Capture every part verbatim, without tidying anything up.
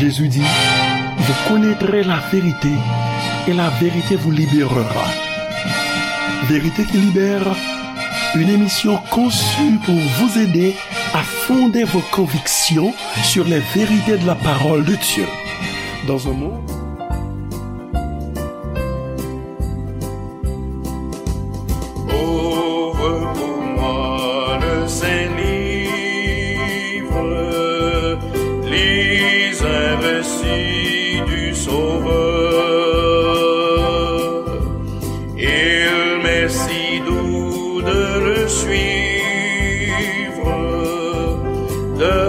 Jésus dit, vous connaîtrez la vérité et la vérité vous libérera. Vérité qui libère, une émission conçue pour vous aider à fonder vos convictions sur les vérités de la parole de Dieu. Dans un monde Ouvre pour moi le saint livre, les investis du Sauveur. Il m'est si doux de le suivre, de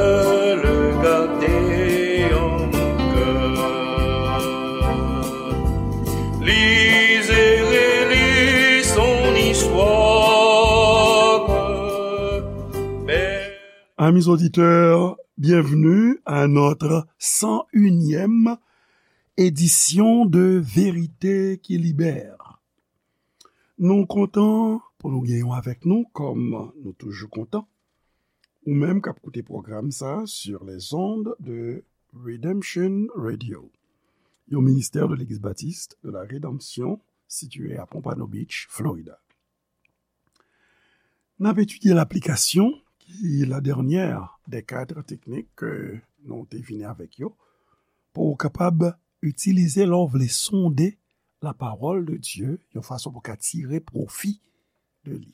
le garder en mon cœur. Lisez et lis son histoire. Amis auditeurs, bienvenue à notre cent unième édition de Vérité qui Libère. Nou kontan pou nou genyen w avèk nou, kòm nou toujou kontan. Ou menm k ap koute pwogram sa sur les ondes de Redemption Radio, yon ministè de Legliz Batis de la Redanmsyon sitiye a Pompano Beach, Florida. N ap etidye laplikasyon, ki la dènyè dè kad teknik ke nou te vini avèk yo, pou w kapab itilize lè w vle sonde la pawòl de Dye yon fason pou w ka tire pwofi de li.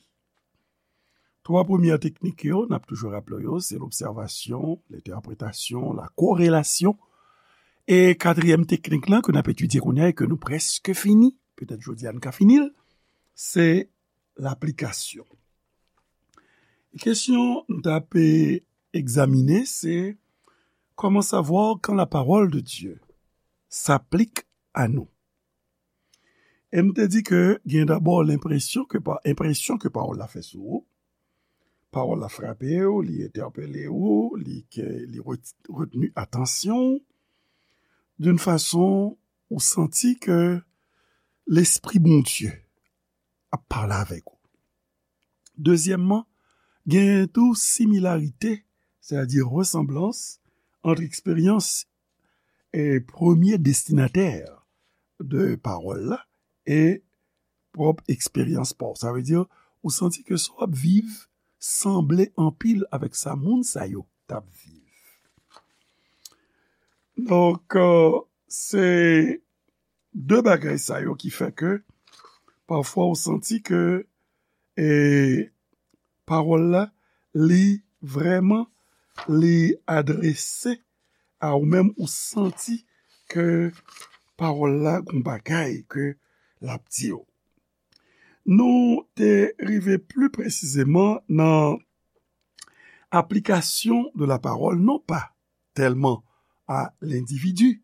Twa premyè teknik yo, n ap toujou raple w yo, se lobsèvasyon, lentèpretasyon, la korelasyon. E katriyèm teknik lan ke n ap etidye kounye a e ke nou prèske fini, petèt jodi a n ka fini l, se laplikasyon. E kesyon nou t ap egzamine, se comment savoir quand la parole de Dieu s'applique à nous. E m te di ke gen dabò lenpresyon ke pa, enpresyon ke pawòl la fè sou ou. Pawòl la frape w, li entèpele w, li ke, li ret-, retni atansyon w, d'une façon ou santi ke Lespri Bondye ap pale avèk ou. Dezyèmman, gen tou similarite, sètadi resanblans, ant eksperyans e premye destinatè de pawòl la e pwòp eksperyans pa w. Sa vle di, ou santi ke sa w ap viv sanble anpil avèk sa moun sa yo t ap viv. Donk, euh, se de bagay sa yo ki fè ke pafwa ou santi ke, e, pawòl la, li vrèman, li adrese a ou menm, ou santi ke pawòl la gon bagay ke l ap di w. Nou te rive pli presizeman nan aplikasyon de la parole, non pas tellement à l'individu,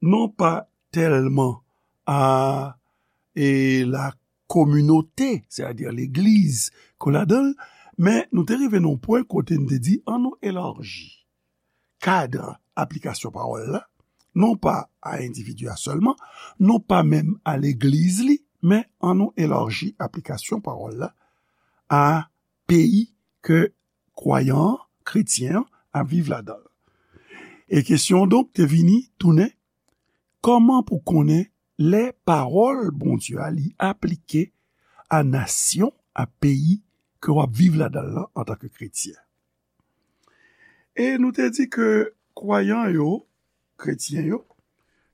non pas tellement à, e, la communauté, sètadi legliz ke w ladan l, men nou te rive nan yon pwen kote n te di, ann nou elaji kad aplikasyon pawòl la, non pa a endividi a sèlman, non pa menm a legliz li, men ann nou elaji aplikasyon pawòl la a peyi ke kwayan an, kretyen an, ap viv ladan l. E kesyon an donk te vini tounen, kòman pou konnen lè pawòl Bondye a li aplike a nasyon, a peyi ke w ap viv ladan l lan antanke kretyen? E nou te di ke kwayan yo, kretyen yo,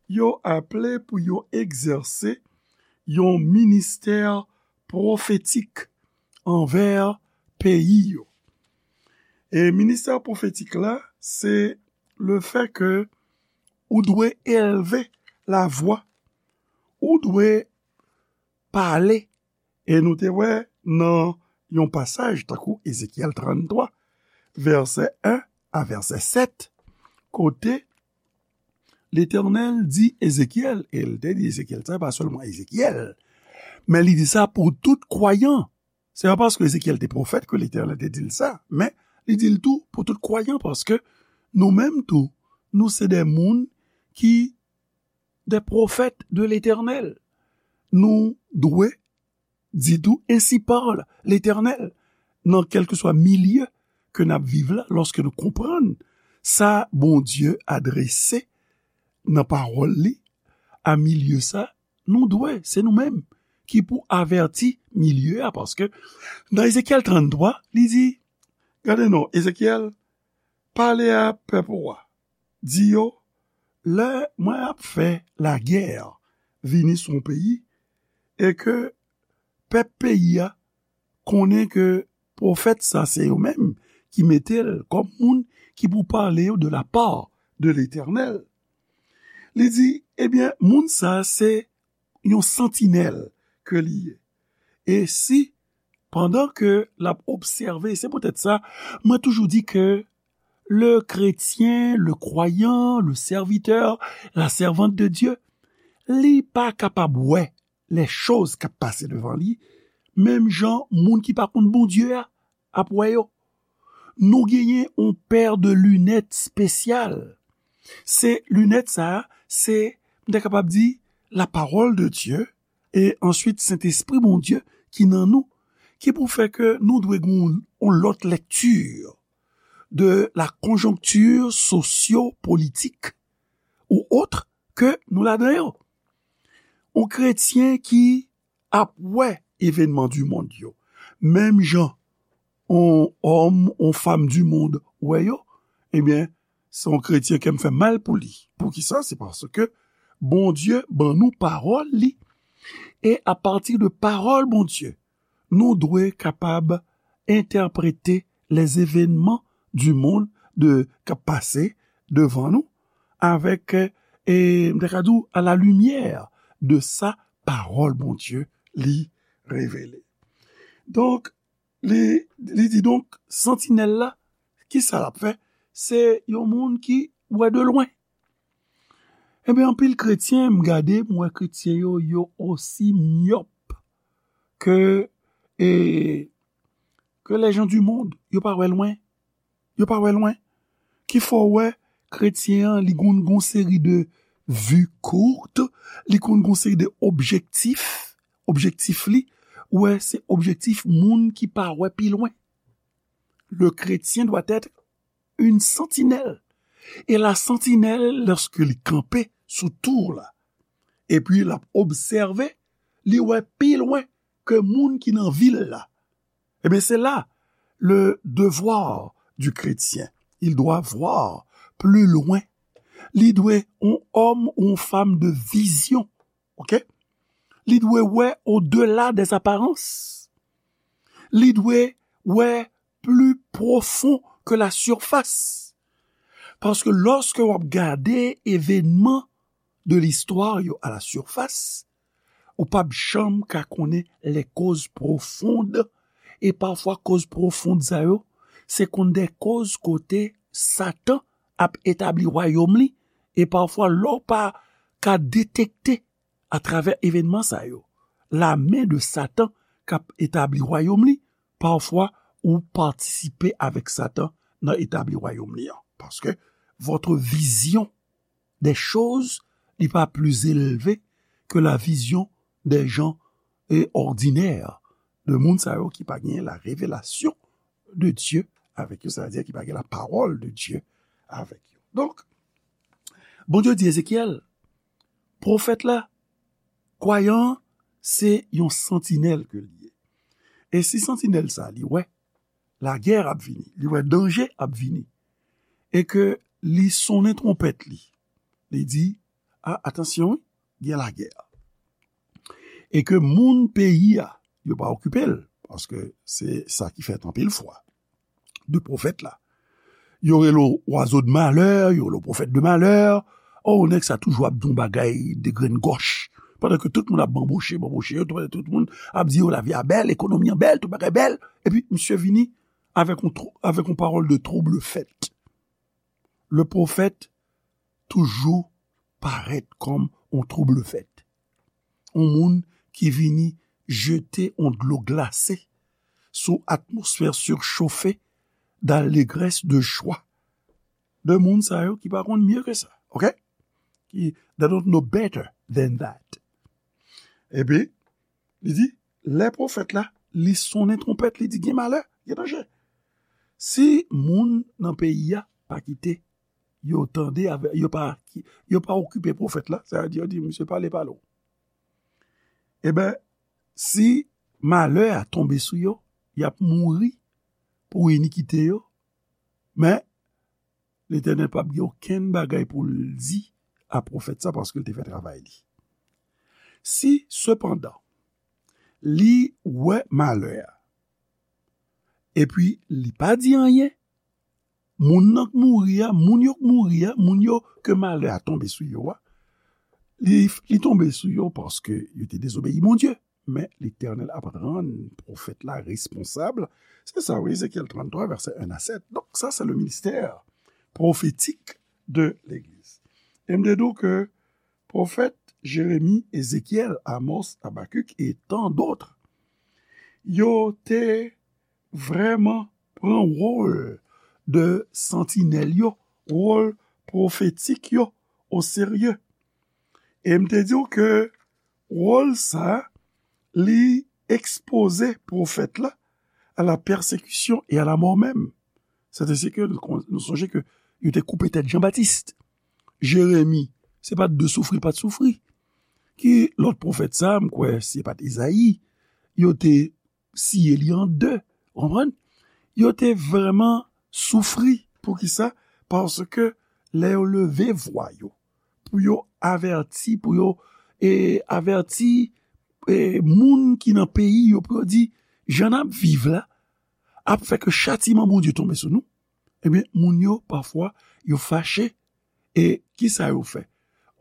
yo aple pou yo egzèse yon ministè pwofetik anvè peyi yo. E ministè pwofetik la, se le fè ke ou dwe elve lavwa, ou dwe pale. E nou te wè nan yon pasaj tankou Ezekyèl tranntwa, vèsè en a vèsè sèt, kote Letènèl di Ezekyèl, e l te di Ezekyèl, sa pa sèlman Ezekyèl, men li di sa pou tout kwayan. Se pa paske Ezekyèl te pwofèt ke Letènèl te di l sa, men li di l tou pou tout kwayan, paske nou menm tou, nou se de moun ki de pwofèt de Letènèl. Nou dwe di tou, ainsi parle l'Éternel, nan kèlkeswa milye ke n ap viv la, lòske nou konprann sa Bondye adrese nan pawòl li a milye sa, nou dwe, se nou menm ki pou avèti milye a, paske nan Ezekyèl tranntwa, li di, gade non, Ezekyèl, pale a pèp ou a, di yo, lè mwen ap fè lagè vini sou yon peyi, e ke pèp peyi a konnen ke pwofèt sa se yo menm ki mete l kòm moun ki pou pale yo de la part de Letènèl. Li di, ebyen, moun sa se yon santinèl ke li ye. E si, pandan ke l ap obsève, se poutèt sa, mwen toujou di ke le chrétien, le croyant, le serviteur, la servante de Dieu, li pa kapab wè les choses k ap pase devan li, menm jan moun ki pa konn Bondye a ap wè yo. Nou genyen yon pè de linèt espesyal. Se linèt sa a, se, m ta kapab di, la parole de Dieu, e answit Sentespri Bondye ki nan nou, ki pou fè ke nou dwe gen yon, yon lòt lèkti de la conjoncture socio-politique ou autre ke nou ladan yo. Yon kretyen ki ap wè evènman di mond yo, menm jan yon òm, yon fanm di mond wè yo, ebyen, se yon kretyen ke m fè mal pou li. Poukisa? Se paske Bondye ban nou pawòl li. E apati de pawòl Bondye, nou dwe kapab entèprete les événements du monde de, k ap pase devan nou avèk, e, m ta ka di w, à la lumière de sa pawòl Bondye li revele. Donk, li, li di donk, santinèl la, ki sa l ap fè? Se yon moun ki wè de lwen. Ebyen, anpil kretyen, m gade, m wè kretyen yo, yo osi myòp ke, e, ke les gens du monde. Yo pa wè lwen. Yo pa wè lwen. Ki fè w wè kretyen an, li konn gon seri de vue courte, li konn gon seri de objektif, objektif li, ou wè, se objektif moun ki pa wè pi lwen. Le chrétien doit être une sentinelle. E la sentinèl, lòske li kanpe sou tou la, epi l ap obsève, li wè pi lwen ke moun ki nan vil la. Ebyen, se la, le devoir du chrétien. Il doit voir plus loin. Li dwe yon òm ou yon fanm de vizyon. Ok? Li dwe wè au-delà des apparences. Li dwe wè plus profond que la surface. Paske lòske w ap gade evènman de listwa yo à la surface, ou p ap janm ka konnen les causes profondes. E pafwa, koz pwofon sa yo, se konn de koz kote Satan ap etabli wayòm li. E pafwa, lè w pa ka detekte atravè evènman sa yo, lamen de Satan k ap etabli wayòm li, pafwa, ou patisipe avèk Satan nan etabli wayòm li an. Paske votre vision des choses n'est pas plus élevée que la vision des gens, eh, ordinaires, de moun sa yo ki pa gen la révélation de Dieu avèk yo, sa vle di ki pa gen la parole de Dieu avèk yo. Donk, Bondye di Ezekyèl, pwofèt la, kwayan an, se yon santinèl ke li ye. E si santinèl sa, li wè lagè ap vini, li wè danje ap vini, e ke li sonnen twonpèt li, li di, a, atansyon, wi, gen lagè. E ke moun peyi a, yo pa okipe l, paske se sa ki fèt anpil fwa de pwofèt la. Yo rele w oiseau de malheur, yo rele w prophète de malheur. O, nèg sa toujou ap di yon bagay de grenn gòch. Pandan ke tout moun ap banboche, banboche yo, tout, tout moun ap di yo lavi a bèl, ekonomi an bèl, tout bagay bèl. Epi, misye vini avèk yon, avèk yon pawòl de trouble fête. Le pwofèt toujou parèt kòm yon trouble fête. Yon moun ki vini jete yon dlo glase sou atmosfè sichofe d'allégresse, de joie. De moun sa yo ki pa konn mye ke sa, ok? Ki, they don't know better than that. Epi, li di, lè pwofèt la, li sonnen twonpèt, li di, gen malè, gen danje. Si moun nan peyi a pa kite yo tande, avè- yo pa, yo pa okipe pwofèt la, sa vle di, yo di, "Misye pale, pale w." Ebyen, si malè a tonbe sou yo, y ap mouri pou inikite yo, men Letènèl p ap gen okenn bagay pou l di a pwofèt sa, paske l te fè travay li. Si, sepandan, li wè malè a, epi li pa di anyen, moun nan k mouri a, moun yo k mouri a, moun yo ke malè a tonbe sou yo a, li, li tonbe sou yo paske yo te dezobeyi Bondye. Men Letènèl ap rann pwofèt la responsab. Se sa, wi, Ezekyèl tranntwa, vèsè en a sèt. Donk, sa, se le ministè pwofetik de legliz. E m te di w ke pwofèt Jeremi, Ezekyèl, Amos, Abakik e tan dòt, yo te vrèman pran wòl de santinèl yo, wòl pwofetik yo oserye. E m te di w ke wòl sa a, li ekspoze pwofèt la à la persécution et à la mort même. Sètadi ke nou, nou sonje ke yo te koupe tèt Jan Batis. Jeremi, se pa t de soufri l pa t soufri. Ki lòt pwofèt sa, m kwè, se pa t Ezayi, yo te siye li an de. Ou konprann? Yo te vrèman soufri. Poukisa? Paske lè yo leve vwa yo pou yo avèti, pou yo e, avèti e, moun ki nan peyi yo, pou yo di, jan n ap viv la ap fè ke chatiman Bondye tonbe sou nou, ebyen, moun yo, pafwa, yo fache. E kisa yo fè?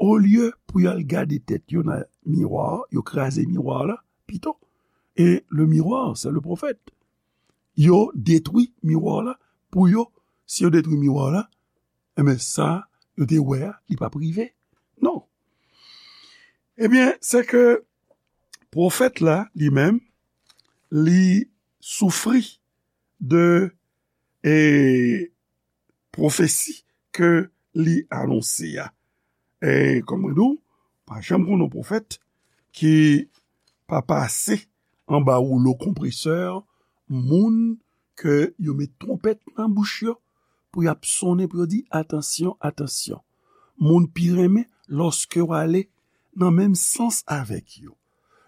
Olye pou y al gade tèt yo nan miwa, yo kraze miwa la pito. Et le miroir, c'est le prophète. Yo detwi miwa la pou yo. Si yo detwi miwa la, ebyen, sa yo te wè a, li p ap rive. Non. Ebyen, se ke pwofèt la, li menm, li soufri de e, pwofesi ke li anonse a. E, kòm mwen di w, pa janm konn yon pwofèt ki pa pase anba woulo konpresè moun ke yo met twonpèt nan bouch yo pou y ap sonnen, pou yo di, "Atansyon, atansyon." Moun pi renmen lòske w ale nan menm sans avèk yo.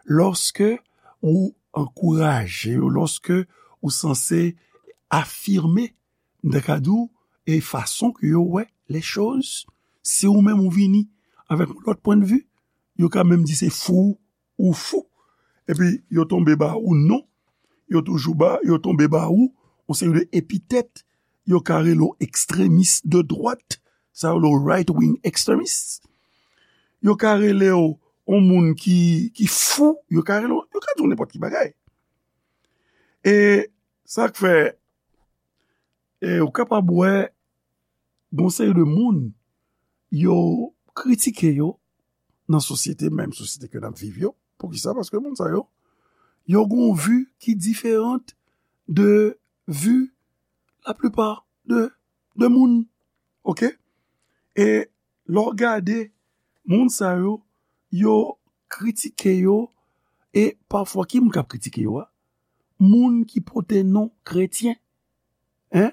Lòske ou ankouraje yo, lòske ou sanse afime, m ta ka di w, e fason ke yo wè les choses. Si ou menm ou vini avèk yon lòt pwennvi, yo ka menm di se fou ou fou. Epi yo tonbe ba ou non, yo toujou ba, yo tonbe ba ou yon seri de epitèt, yo ka rele w ekstremis de dwat, sa yo rele w right wing extremist. Yo ka rele w yon moun ki, ki fou, yo ka rele w, yo ka di w nenpòt ki bagay. E sa k fè, e ou kapab wè, gon seri de moun, yo kritike yo nan sosyete, menm sosyete ke n ap viv yo. Poukisa? Paske moun sa yo, yo gon vi ki diferan de vi laplipa de, de moun. Oke? E lè w gade moun sa yo, yo kritike yo, e pafwa, ki moun k ap kritike yo a? Moun ki pote non kretyen. Hein?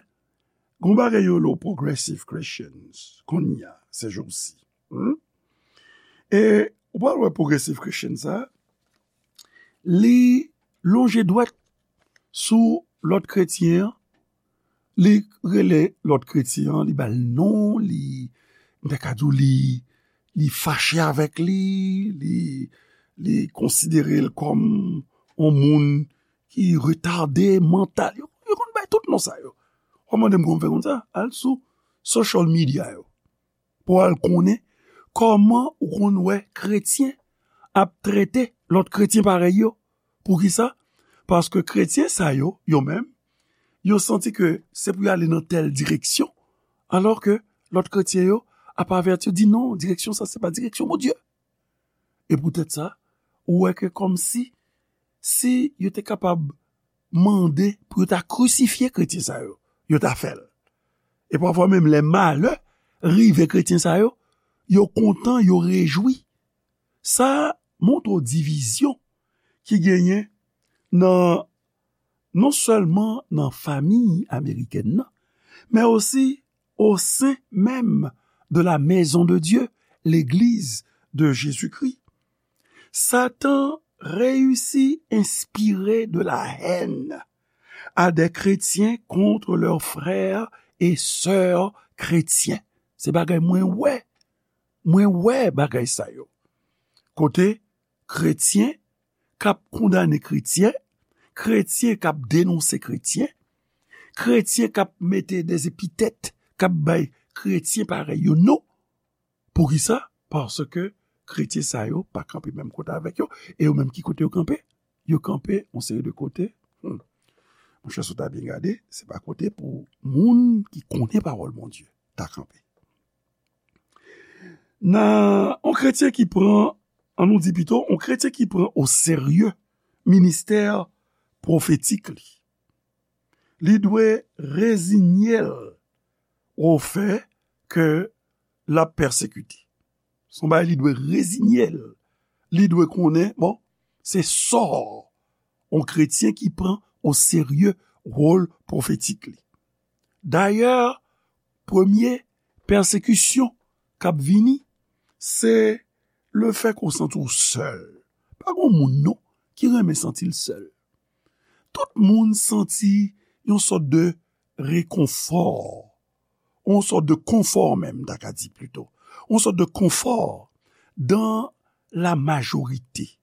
Gon bagay yo rele w progressive Christians, kounye a, se jou si. Hmm? E ou pral wè progressive Christian sa, li lonje dwèt sou lòt kretyen an, li rele lòt kretyen an, li ba l non, li, m ta ka di w, li, li fache avèk li, li, li konsidere l kòm yon moun ki retade mantal. Yo, yo konn bay tout non sa yo. Ou mande m kòman fè konn sa? Al sou social media yo. Pou al konnen kòman ou konn wè kretyen ap trete lòt kretyen parèy yo. Poukisa? Paske kretyen sa yo, yo menm, yo santi ke se pou y ale nan tèl direksyon, alò ke lòt kretyen yo ap avèti, di non, direksyon sa, se pa direksyon Bondye. E poutèt sa, ou wè ke kòmsi, si yo te kapab mande pou yo ta krisifye kretyen sa yo, yo ta fè l. E pafwa menm lè malè rive kretyen sa yo, yo kontan, yo rejwi. Sa montre w divizyon ki genyen nan, non sèlman nan fanmi amerikèn nan, men osi au sein même de la maison de Dieu, l'église de Jésus-Christ, Satan réussit à inspirer de la haine à des chrétiens contre leurs frères et sœurs chrétiens. Se bagay mwen wè. Mwen wè bagay sa yo. Kote kretyen k ap kondane kretyen, kretyen k ap denonse kretyen, kretyen k ap mete des epitèt, k ap bay kretyen parèy yo non. Poukisa? Paske kretyen sa yo pa kanpe menm kote avèk yo. E yo menm ki kote yo kanpe? Yo kanpe yon seri de kote. Hmm. Monchè, si w ta byen gade, se pa kote pou moun ki konnen pawòl Bondye ta kanpe. Nan yon kretyen ki pran, an nou di pito, yon kretyen ki pran o serye ministè pwofetik li, li dwe rezinye l o fè ke l ap pèsekite. Se yon bagay li dwe rezinye l. Li dwe konnen, bon, se sò yon kretyen ki pran o serye wòl pwofetik li. Dayè, premye pèsekisyon k ap vini, se lefètke w santi w sèl. Pa gen moun non ki renmen santi l sèl. Tout moun santi yon sòt de rekonfò, yon sòt de konfò menm, m ta ka di plito, yon sòt de konfò dans la majorité.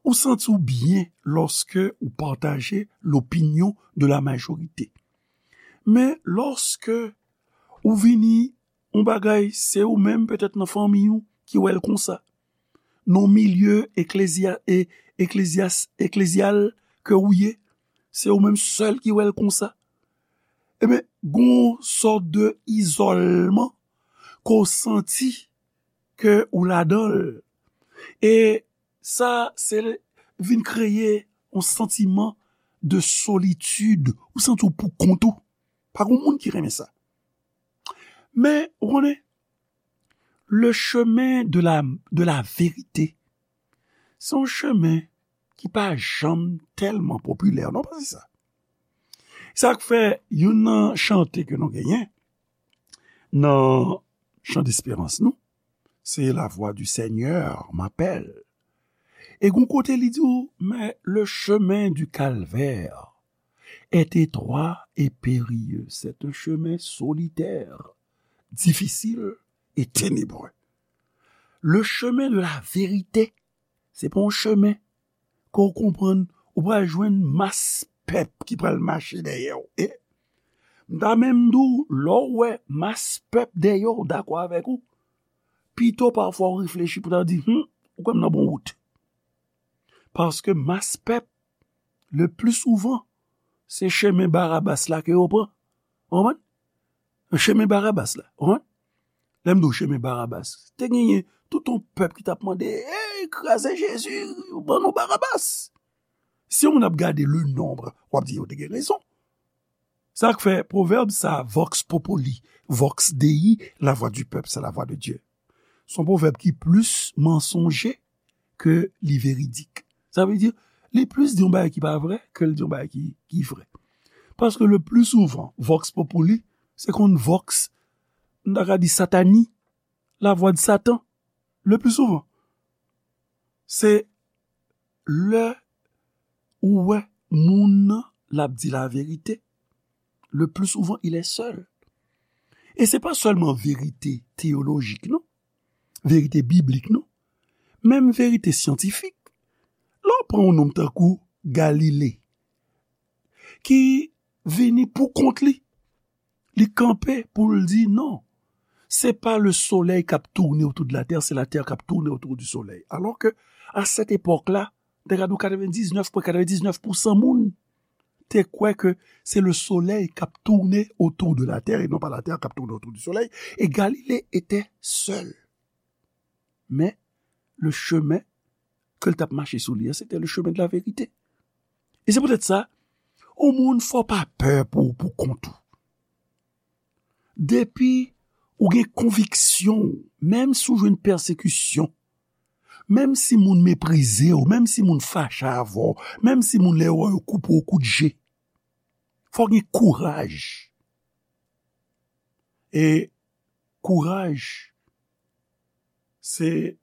Ou santi w byen lòske ou pataje l'opinion de la majorité. Men lòske ou vini yon bagay, se ou menm petèt nan fanmi w ki wè l konsa. Nan milye eklezya-, e, eklezyas-, eklezyal ke ou ye, se ou menm sèl ki wè l konsa. Ebyen, gon sòt de izòlman ke w santi ke ou ladan l. E sa, se vin kreye yon santiman de solitid. Ou santi w pou kont ou. Pa gen moun ki renmen sa. Men, ou konnen, le chemin de la, de la vérité, se yon chemen ki pa janm tèlman popilè, non, pa se sa. Sa k fè youn nan chante ke nou genyen nan chan desperans nou, se La voix du Seigneur m'appelle. E gon kote li di w, mais le chemin du calvaire est étroit et périlleux. C'est un chemin solitaire, difficile et ténébreux. Le chemin de la vérité, se pa yon chemen ke w konprann, ou pral jwenn mas pèp ki pral mache dèyè w. E m ta menm di w, lè w wè mas pèp dèyè w dakò avèk ou, pito pafwa w reflechi pou ta di, hmm, ou kwè m nan bon wout. Paske mas pèp, le pli souvan, se chemen Barabas la ke yo pran. Ou konprann? Chemen Barabas la. Ou konprann? Lè m di w chemen Barabas, te genyen tout yon pèp ki t ap mande, "Ey, kraze Jezi, ban nou Barabas." Si yon moun ap gade le nombre, w ap di yo te gen rezon. Sa k fè pwovèb sa, vox populi, vox Dei, la voix du peuple, c'est la voix de Dieu. Se yon pwovèb ki plis mansonje ke li veridik. Sa vle di, li plis di yon bagay ki pa vrè ke li di yon bagay ki, ki vrè. Paske le pli souvan, vox populi, se konn vox, m ta ka di satani, la voix de Satan, le pli souvan. Se lè ou wè moun nan, l ap di laverite, le pli souvan, il est seul. E se pa sèlman verite teyolojik, non. Verite biblik, non. Menm verite syantifik. Lè w pran yon nonm tankou Galile, ki vini pou kont li, li kanpe pou l di, non, se pa le soleil k ap tounen otou de la tè, se la tè k ap tounen otou di solèy. Alò ke, a sèt epòk la, te ka di w katrevendiznèf pwen katrevendiznèf pousan moun te kwè ke se le soleil k ap tounen otou de la tè e non pa la tè k ap tounen otou di solèy. E Galile etè sèl. Men, le chemen ke l t ap mache sou li an, se te le chemen de la verite. E se poutèt sa, yon moun fò w pa pè pou, pou kont ou. Depi ou gen konviksyon w, menm si w jwenn pèsekisyon, menm si moun meprize w, menm si moun fache avè w, menm si moun lè yo wè yo koupe w kout je, fò w gen kouraj. E kouraj, se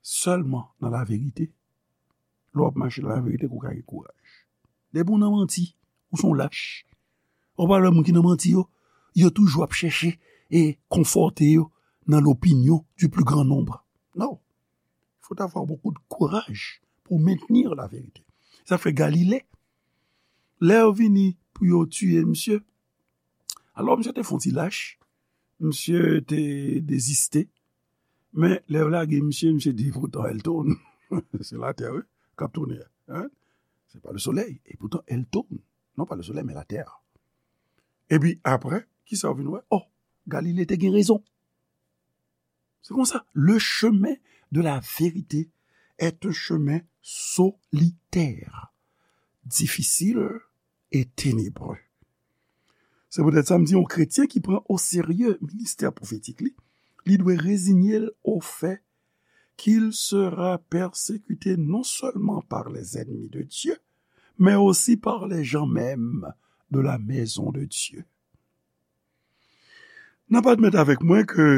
sèlman nan laverite. Lè w ap mache nan laverite ke w ka gen kouraj. Depi w nan manti, ou se yon lach. Ou pa wè moun ki nan manti yo, yo toujou ap chèche e konfòte yo nan l'opinion du plus grand nombre. Non. Il faut avoir beaucoup de courage pour maintenir la vérité. Sa fè Galile, lè yo vini pou yo tiye misye, alò misye te fè yon ti lach, misye te deziste, men lè yo lage misye, misye di, pourtant elle tourne. Se latè, wi, k ap tounen an. Hein? C'est pas le soleil. Et pourtant elle tourne. Non pas le soleil, mais la terre. Epi apre, kisa w vin wè? Oh, Galile te gen rezon. Se konsa, le chemin de la vérité est un chemin solitaire, difficile et ténébreux. Se poutèt sa m di, yon kretyen ki pran o serye ministè pwofetik li, li dwe reziye l au fait qu'il sera persécuté non seulement par les ennemis de Dieu, mais aussi par les gens mêmes de la maison de Dieu. N ap admèt avèk mwen ke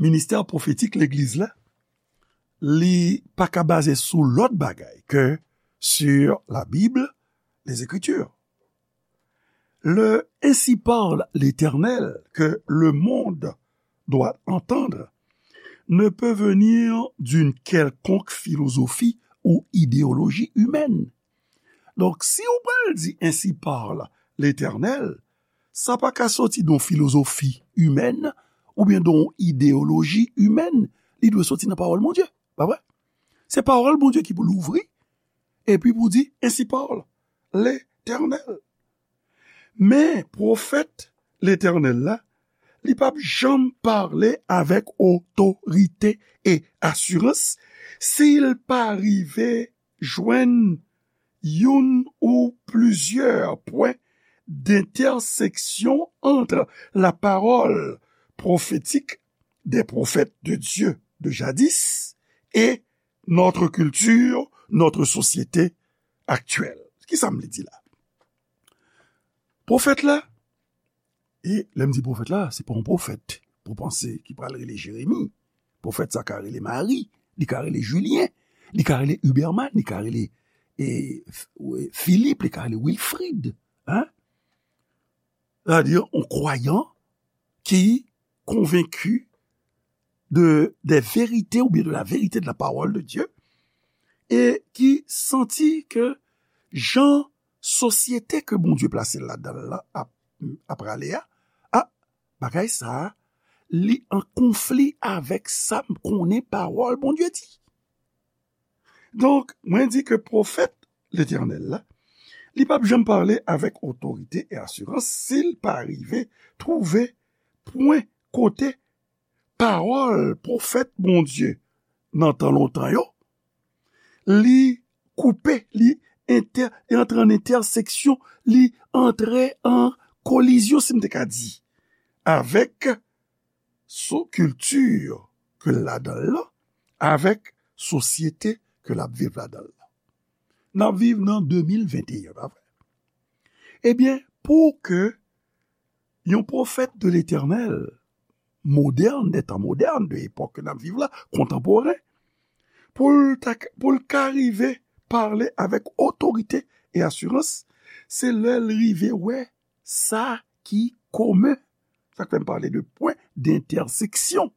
ministè pwofetik legliz la, li pa ka baze sou lòt bagay ke sur la Bible, les Écritures. Le ainsi parle l'Éternel que le monde doit entendre ne peut venir d'une quelconque philosophie ou idéologie humaine. Donk, si ou pral di ainsi parle l'Éternel, sa pa ka soti de yon filozofi imèn oubyen de yon ideyoloji imèn. Li dwe soti nan pawòl Bondye, pa vre? Se pawòl Bondye ki pou louvri, epi pou di, ainsi parle l'Éternel. Men, pwofèt Letènèl la, li p ap janm pale avèk otorite e asirans si l pa rive jwenn youn ou plizyè pwen d'entèseksyon ant la parole prophétique des prophètes de Dieu de jadis et notre culture, notre société actuelle. Kisa m vle di la? Pwofèt la, e lè m di pwofèt la, se pa yon pwofèt pou panse ki pral rele Jeremi. Pwofèt sa ka rele Mari, li ka rele Julien, li ka rele Huberman, li ka rele e, F- e, Philippe, li ka rele Wilfrid. Hein? Sètadi, yon kwayan ki konvenki de, des vérités ou bien de la vérité de la parole de Dieu, e ki santi ke jan sosyete ke Bondye plase l ladan l lan ap, ap prale a, a, bagay sa a, li an konfli avèk sa m konnen pawòl Bondye di. Donk, mwen di ke pwofèt Letènèl la, li p ap janm pale avèk otorite e asirans si l pa rive twouve pwen kote pawòl pwofèt Bondye nan tan lontan yo, li koupe, li entè, li antre an entèseksyon, li antre an kolizyon, si m te ka di, avèk so kilti ke l ladan l lan, avèk sosyete ke l ap viv ladan l lan. N ap viv nan de mil venteyen, pa vre? Ebyen, pou ke yon pwofèt de Letènèl, modèn, de tan modèn, de epòk ke n ap viv la, kontanporen, pou l ta, pou l ka rive pale avèk otorite e asirans, se lè l rive wè sa ki komen. Sa k fè m pale de pwen d'entèseksyon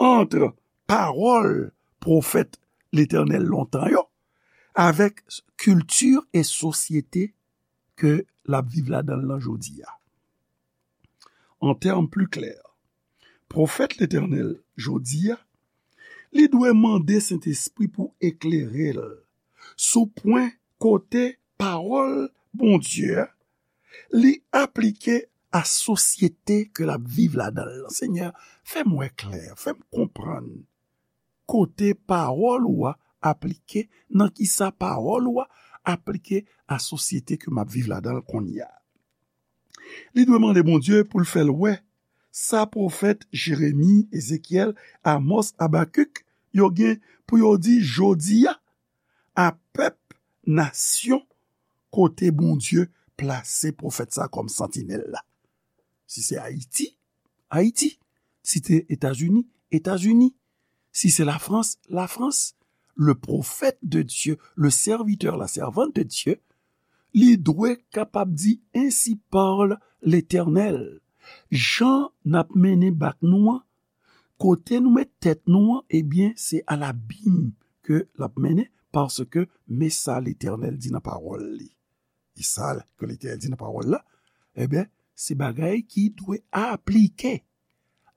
ant pawòl pwofèt Letènèl lontan yo avèk kilti e sosyete ke l ap viv ladan l lan jodi a. An tèm pli klè, pwofèt Letènèl jodi a, li dwe mande Sentespri pou eklere l sou pwen kote pawòl Bondye a, li aplike a sosyete ke l ap viv ladan l lan. Senyè, fè m wè klè, fè m konprann kote pawòl ou a aplike, nan kisa pawòl ou a aplike a sosyete ke m ap viv ladan l kounye a. Li dwe mande Bondye pou l fè l wè sa pwofèt Jeremi, Ezekyèl, Amòs, Abakik yo gen pou yo di jodi a a pèp, nasyon kote Bondye plase pwofèt sa kòm santinèl la. Si se Ayiti, Ayiti. Si se Etazini, Etazini. Si se Lafrans, Lafrans. Le prophète de Dieu, le serviteur, la servante de Dieu, li dwe kapab di, Ainsi parle l'Éternel. Jan n ap mennen bak nou an, kote nou met tèt nou an, ebyen, se a labim ke l ap mennen, paske men sa Letènèl di nan pawòl li. E sa ke Letènèl di nan pawòl la, ebyen, se bagay ki dwe aplike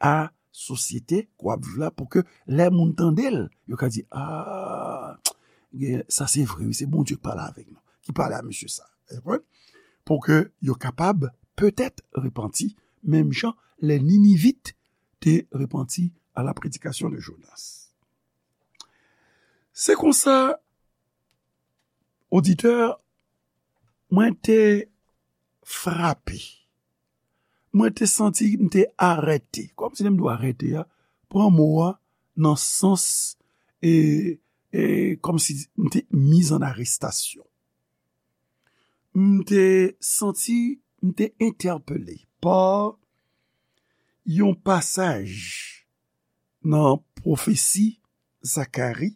a sosyete ke w ap viv la, pou ke lè moun tande l, yo ka di, a, gen, sa se vre, wi, se Bondye k pale avèk nou, ki pale a mesye sa. Ou konprann? Pou ke yo kapab petèt repanti, menm jan lè Ninivit te repanti a la prédication de Jonas. Se konsa, oditè, mwen te frape. Mwen te santi m te arete. Kòmsi lè m di w arete a, pran mo a nan sans, e, e, kòmsi m te mise en arrestation. M te santi, m te entèpele pa yon pasaj nan pwofesi Zakari,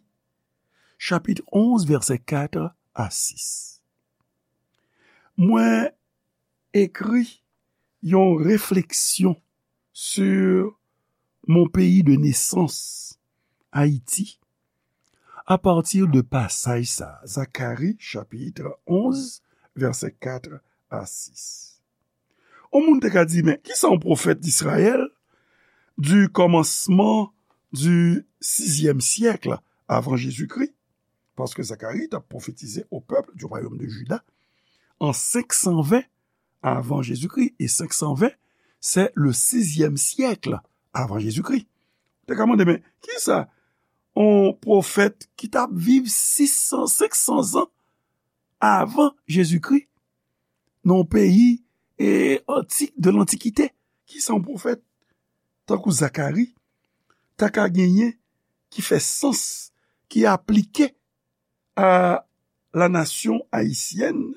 chapit onz, vèsè kat a sis. Mwen ekri yon refleksyon sur mon pays de naissance, Ayiti, a pati de pasaj sa, Zakari, chapit onz, vèsè kat a sis. Yon moun te ka di, men, kisa yon pwofèt Izrayèl du kòmansman du sizyèm syèk avan Jezikri, paske Zakari t ap pwofetize au peuple du royaume de Juda an senk san ven avan Jezikri, e senk san ven, se le sizyèm syèk avan Jezikri. Te ka mande, men, kisa yon pwofèt ki t ap viv sis san, senk san zan avan Jezikri, nan yon peyi, e, antik, de lantikite, kisa yon pwofèt tankou Zakari ta ka genyen ki fè sans, ki aplike à la nation haïtienne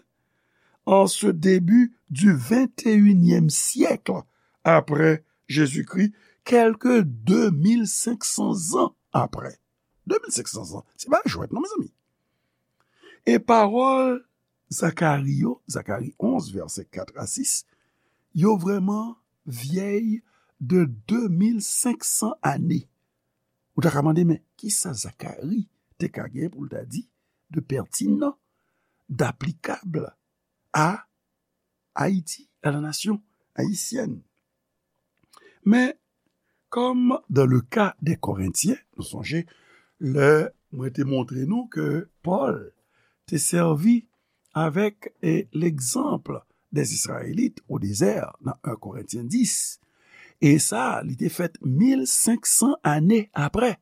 en ce début du vingt et unième siècle après Jésus-Christ, quelque deux mille cinq cents ans après. Deux mille cinq cents ans, se pa jwèt non, mezanmi. E pawòl Zakari yo, Zakari onz, vèsè kat a sis, yo vrèman vyèy de de mil senk san ane. Ou ta ka mande, men kisa Zakari te ka gen pou l ta di de pètinan, daplikab a Ayiti, a la nasyon ayisyèn? Men, comme dans le cas des Corinthiens, nou sonje, lè mwen te montre nou ke Pòl te sèvi avec, eh, l'exemple des Israélites au désert, dans un Corinthiens dix. E sa, li te fèt mil senk san ane aprè.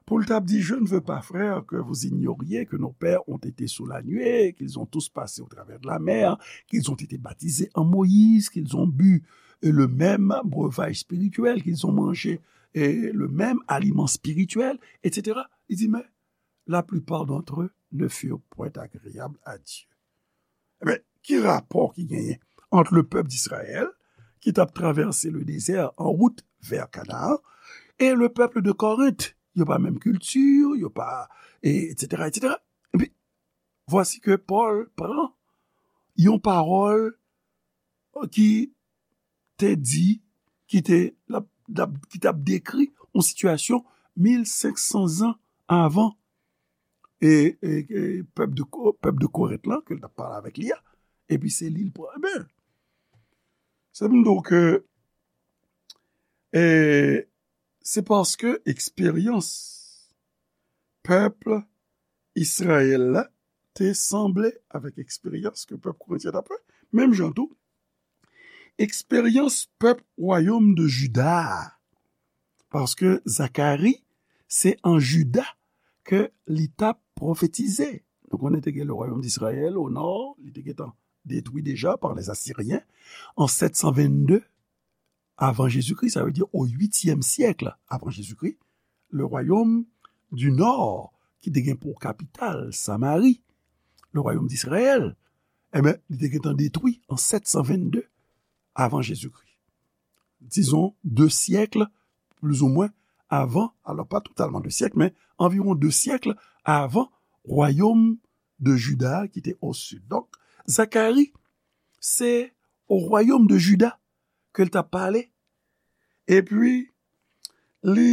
Pou l t ap di, je ne veux pas, frères, que vous ignoriez que nos pères ont été sous la nuée, qu'ils ont tous passé au travers de la mer, qu'ils ont été baptisés en Moïse, qu'ils ont bu, euh, le même breuvage spirituel, qu'ils ont mangé, euh, le même aliment spirituel, et cetera. Li di, mais la plupart d'entre eux ne furent point agréables à Dieu. Ebyen, ki rapò ki genyen ant le pèp d'Izrayèl, ki t ap travèse le dezè an wout vè Kanaan, e le pèp de Korent? Yo pa menm kilti, yo pa, e, et cetera, et cetera. Epi, vwasi ke Pòl pran yon pawòl ki te di, ki te, l ap, l ap, ki t ap dekri yon sitiyasyon mil senk san zan avan, e, e, e pèp de Ko-, pèp de Korent lan, ke l t ap pale avèk li a, epi se li l pran. Ebyen, se pou m di w ke, e, se paske eksperyans pèp Izrayèl la te sanble avèk eksperyans ke pèp Korentyen t ap fè. Menm jan tou, eksperyans pèp wayòm de Jida a. Paske Zakari, se an Jida ke li t ap pwofetize. Nou konnen te gen le royaume d'Israël au nord, li te gentan detwi deja par les Assyriens an sèt san vennde avan Jezikri, sa vle di o uityèm syèk avan Jezikri, le royaume du nord, ki te gen pou kapital Samari, le royaume d'Israël, ebyen, li te gentan detwi an sèt san vennde avan Jezikri. dizon, de syèk, plizoumwen, avan, alò pa totalman de syèk, men anviwon de syèk avan wayòm de Jida ki te o sid. Donk, Zakari, se o wayòm de Jida ke l t ap pale. Epi, li,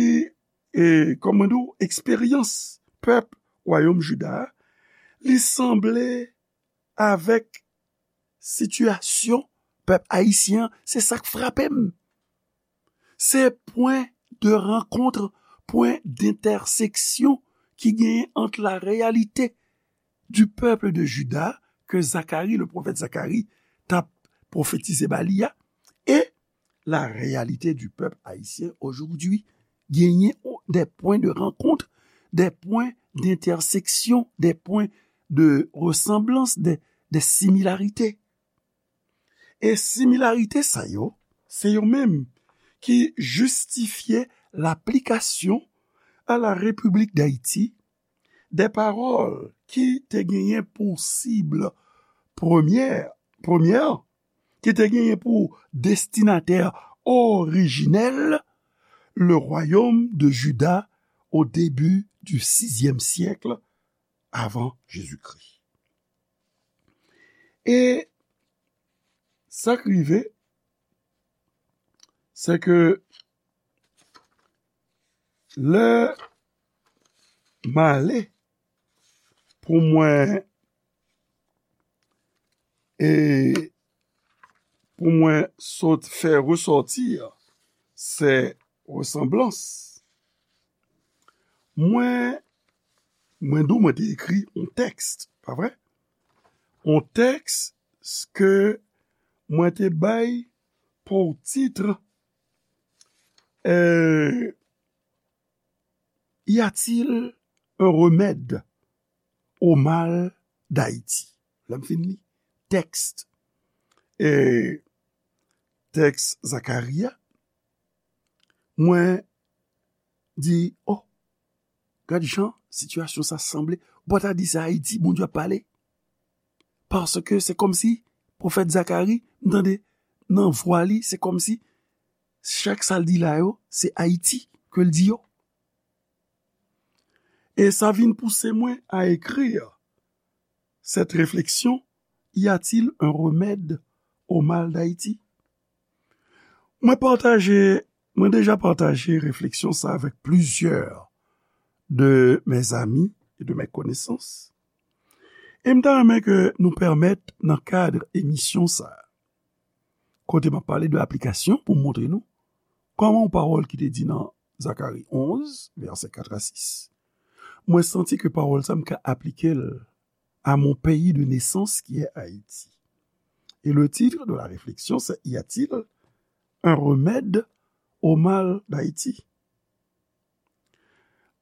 e, kòman di w, eksperyans pèp wayòm Jida a, li sanble avèk sitiyasyon pèp ayisyen an, se sa k frape m. Se pwen de rankont, pwen dentèseksyon ki genyen ant la réalité du peuple de Juda ke Zakari, le pwofèt Zakari, t ap pwofetize ba li a, e la réalité du peuple haïtien aujourd'hui. Genyen des points de rencontre, des points d'intersection, des points de ressemblance, des, des similarités. E similarite sa yo, se yo menm ki jistifye laplikasyon a la Repiblik Dayiti de pawòl ki te genyen pou sib premyè, premyè, ki te genyen pou destinatè orijinèl, le royaume de Juda au début du sixième siècle avant Jésus-Christ. E sa k rive, se ke lè m ale pou mwen, e pou mwen sot fè resòti se resanblans. Mwen, mwen di w mwen te ekri yon tèks, pa vre? Yon tèks ke mwen te bay pou tit, euh, Y a-t-il un remède au mal d'Haïti? Lè m fin li tèks, e tèks Zakari a, mwen di, oh, gad jan sitiyasyon sa sanble. Ou pa ta di se Ayiti Bondye ap pale. Paske se kòmsi pwofèt Zakari, m tande nan vwa li, se kòmsi chak sa l di la yo, se Ayiti ke l di yo. E sa vin pouse mwen a écrire cette réflexion, y a-t-il un remède au mal d'Haïti? Mwen pataje, mwen deja pataje refleksyon sa avèk plizyè de mes amis et de mes connaissances. E m ta renmen ke nou pèmèt nan kad emisyon sa, kote m ap pale de aplikasyon pou m montre nou kòman yon pawòl ki te di nan Zakari onz, vèsè kat a sis, mwen santi ke pawòl sa m ka aplike l à mon pays de naissance qui est Haïti. Et le titre de la réflexion, c'est: Y a-t-il un remède au mal d'Haïti?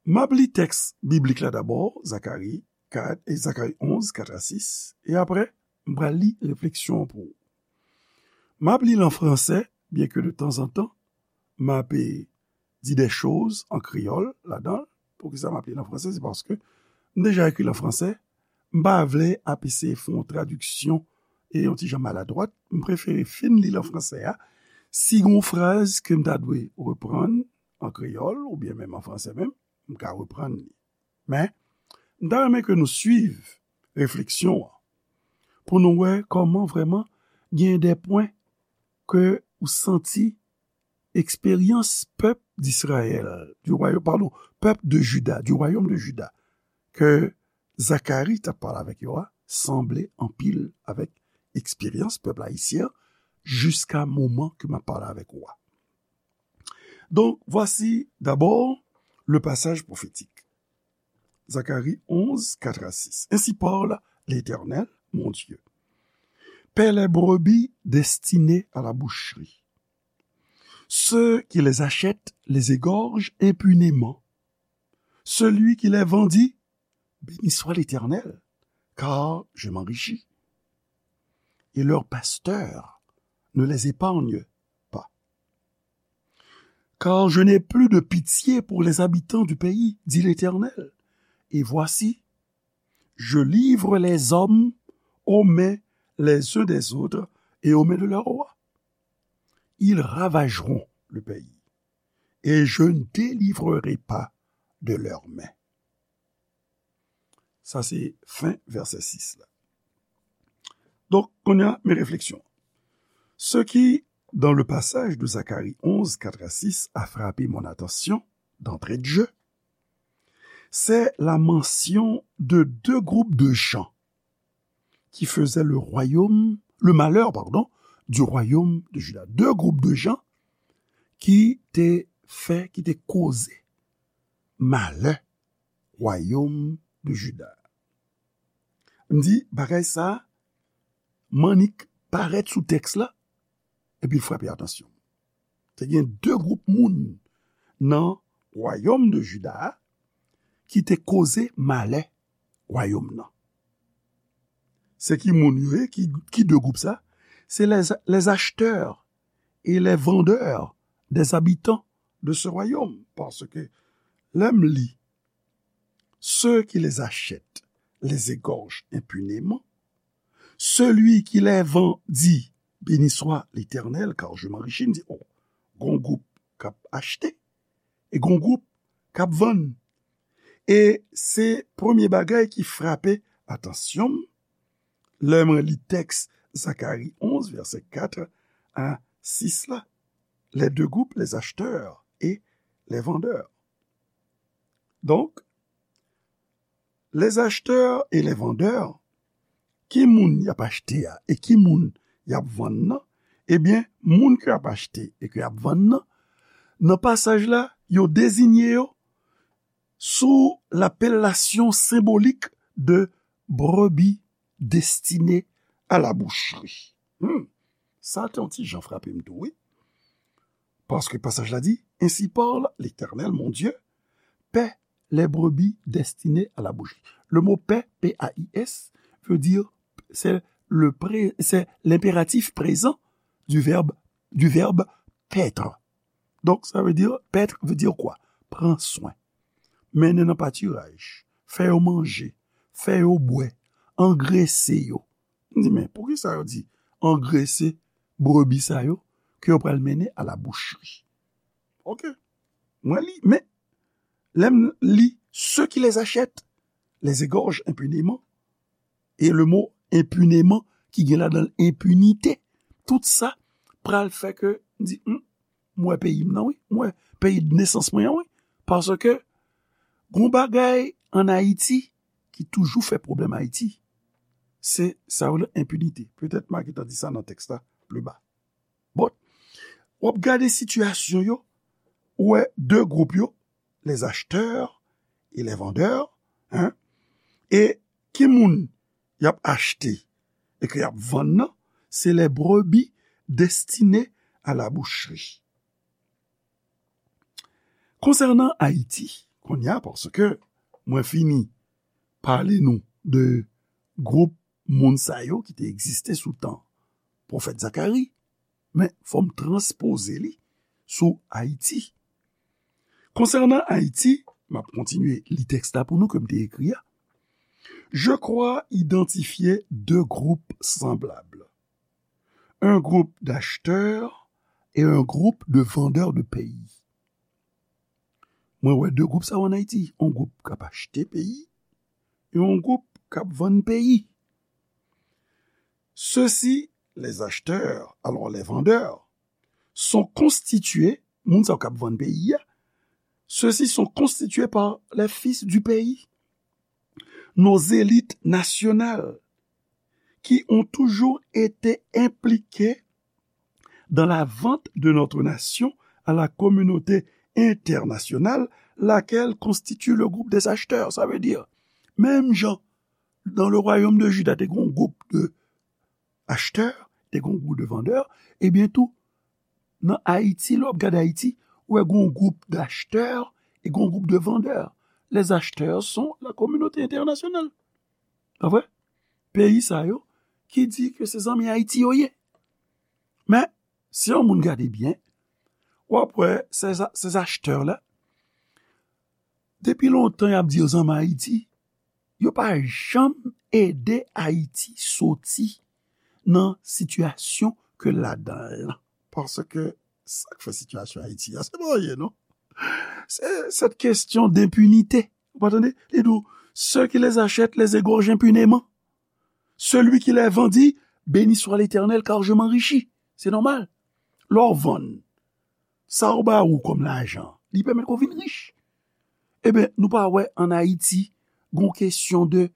M ap li tèks biblik la dabò, Zakari kat, e Zakari onz, kat a sis, e apre, m pral li refleksyon an pou ou. M ap li l an fransè, byen ke de tanzantan, m ap, e, di de choz an kreyòl ladan l. Poukisa m ap li l an fransè? Se paske m deja ekri l an fransè. M pa vle ap eseye fè yon tradiksyon e yon ti jan maladwat. M prefere fin li l an fransè a. Si gen yon fraz ke m ta dwe reprann an kreyòl, oubyen menm an fransè menm, m ka reprann li. Men, m ta renmen ke nou swiv refleksyon an pou nou wè kòman vrèman gen de pwen ke ou santi eksperyans pèp d'Israël, du royaume, pardon, pèp de Juda, du royaume de Juda, ke Zakari t ap pale avèk yo a, sanble anpil avèk eksperyans pèp ayisyen an jiska moman ke m ap pale avèk ou a. Donc, voici d'abord le passage prophétique. Zacharie onze, quatre à six. Ainsi parle l'Éternel, mon Dieu. Paie les brebis destinées à la boucherie. Ceux qui les achètent les égorgent impunément. Celui qui les vendit, béni soit l'Éternel, car je m'enrichis. Et leurs pasteurs ne les épargnent pas. Car je n'ai plus de pitié pour les habitants du pays, dit l'Éternel. Et voici, je livre les hommes aux mains les uns des autres et aux mains de leurs rois. Ils ravageront le pays, et je ne délivrerai pas de leurs mains. Sa se fen vèsè sis la. Donk, kounye a, men refleksyon. Ce qui, dans le passage de Zacharie onze, quatre à six, a frappé mon attention d'entrée de jeu, c'est la mention de deux groupes de gens qui faisaient le royaume, le malheur, pardon, du royaume de Juda. De gwoup de jan ki te fè, ki te koze malè wayòm de Juda. M di, bagay sa, m annik parèt sou tèks la, epi l frape atansyon m. Te gen de gwoup moun nan wayòm de Juda a ki te koze malè wayòm nan. Se ki moun yo ye, ki, ki de gwoup sa? C'est les, les acheteurs et les vendeurs des habitants de ce royaume. Parce que lè m li, ceux qui les achètent les égorgent impunément. Celui qui les vend dit, béni soit l'Éternel, car je m'enrichis. M di, oh, gon gwoup k ap achte e gon gwoup k ap vann. E se premye bagay ki frape atansyon m lè mwen li tèks Zakari onz, vèsè kat a sis la. Les deux groupes, les acheteurs et les vendeurs. Donk, les acheteurs et les vendeurs, ki moun y ap achte a e ki moun y ap vann nan? Ebyen, moun ke y ap achte e ke y ap vann nan, nan pasaj la, yo dezinye yo sous l'appellation symbolique de brebis destinées à la boucherie. Hmm. Sa te yon ti jan frape m tou, wi. Paske pasaj la di, ainsi parle l'Éternel, mon Dieu, paie les brebis destinées à la boucherie. Le mot paie, P A I S, veut dire, c'est le pré-, c'est l'impératif présent du verbe, du verbe paître. Donk, sa vle di, paître veut dire quoi? Pran swen. Mennen nan patiraj, fè yo manje, fè yo bwè, angrese yo. M di, men poukisa yo di angrese brebi sa yo ke yo pral mennen à la boucherie? Ok. Mwen li, men lè m li, ceux qui les achètent les égorgent impunément. E le mo impunément ki gen ladan l enpinite. Tout sa pral fè ke m di, hmm, m wè peyi m nan, wi. M wè peyi de nesans mwen an, wi. Paske gon bagay ann Ayiti ki toujou fè pwoblèm Ayiti, se sa yo rele enpinite. Petèt m a gentan di sa nan tèks la pli ba. Bon, w ap gade sitiyasyon yo, ou wè de gwoup yo, les acheteurs et les vendeurs, hein, e ki moun y ap achte e ke y ap vann nan, se les brebis destinées à la boucherie. Konsènan Ayiti, kounye a, paske mwen fini pale nou de gwoup moun sa yo ki te egziste sou tan pwofèt Zakari, men fò m transpoze li sou Ayiti. Konsènan Ayiti, m ap kontinye li tèks la pou nou ke m te ekri a. Je crois identifier deux groupes semblables. Un groupe d'acheteurs et un groupe de vendeurs de pays. Mwen wè de gwoup sa yo ann Ayiti. Yon gwoup k ap achte peyi e yon gwoup k ap vann peyi. Ceux-ci, les acheteurs, alors les vendeurs, sont constitués, moun sa yo k ap vann peyi a, ceux-ci sont constitués par les fils du pays, nos élites nationales, qui ont toujours été impliquées dans la vente de notre nation à la communauté internationale, laquelle constitue le groupe des acheteurs. Sa vle di, menm jan dans le royaume de Juda, te gen yon gwoup de acheteurs, te gen yon gwoup de vendeurs, ebyen tou, nan Ayiti, lè w ap gade Ayiti, ou wè gen yon gwoup d'acheteurs e gen yon gwoup de vendeurs. Les acheteurs sont la communauté internationale. Pa vre? Peyi sa yo ki di ke se zanmi Ayiti yo ye. Men, si yon moun gade byen, w ap wè ces, ces acheteurs la, depi lontan y ap di yo zanmi Ayiti, yo pa janm ede Ayiti soti nan sitiyasyon ke l ladan l lan. Paske Sa k fè sitiyasyon Ayiti a, se pa anyen, non. Se cette question d'impunité. Ou pa tande? Li di w, ceux qui les achètent les égorgent impunément. Celui qui les vendit, béni soit l'Éternel, car je m'enrichis. Se nòmal. Lè w vann, sa yo ba ou kòm lajan, li pèmèt ke w vin rich. Ebyen, nou pa wè ann Ayiti, gon kesyon de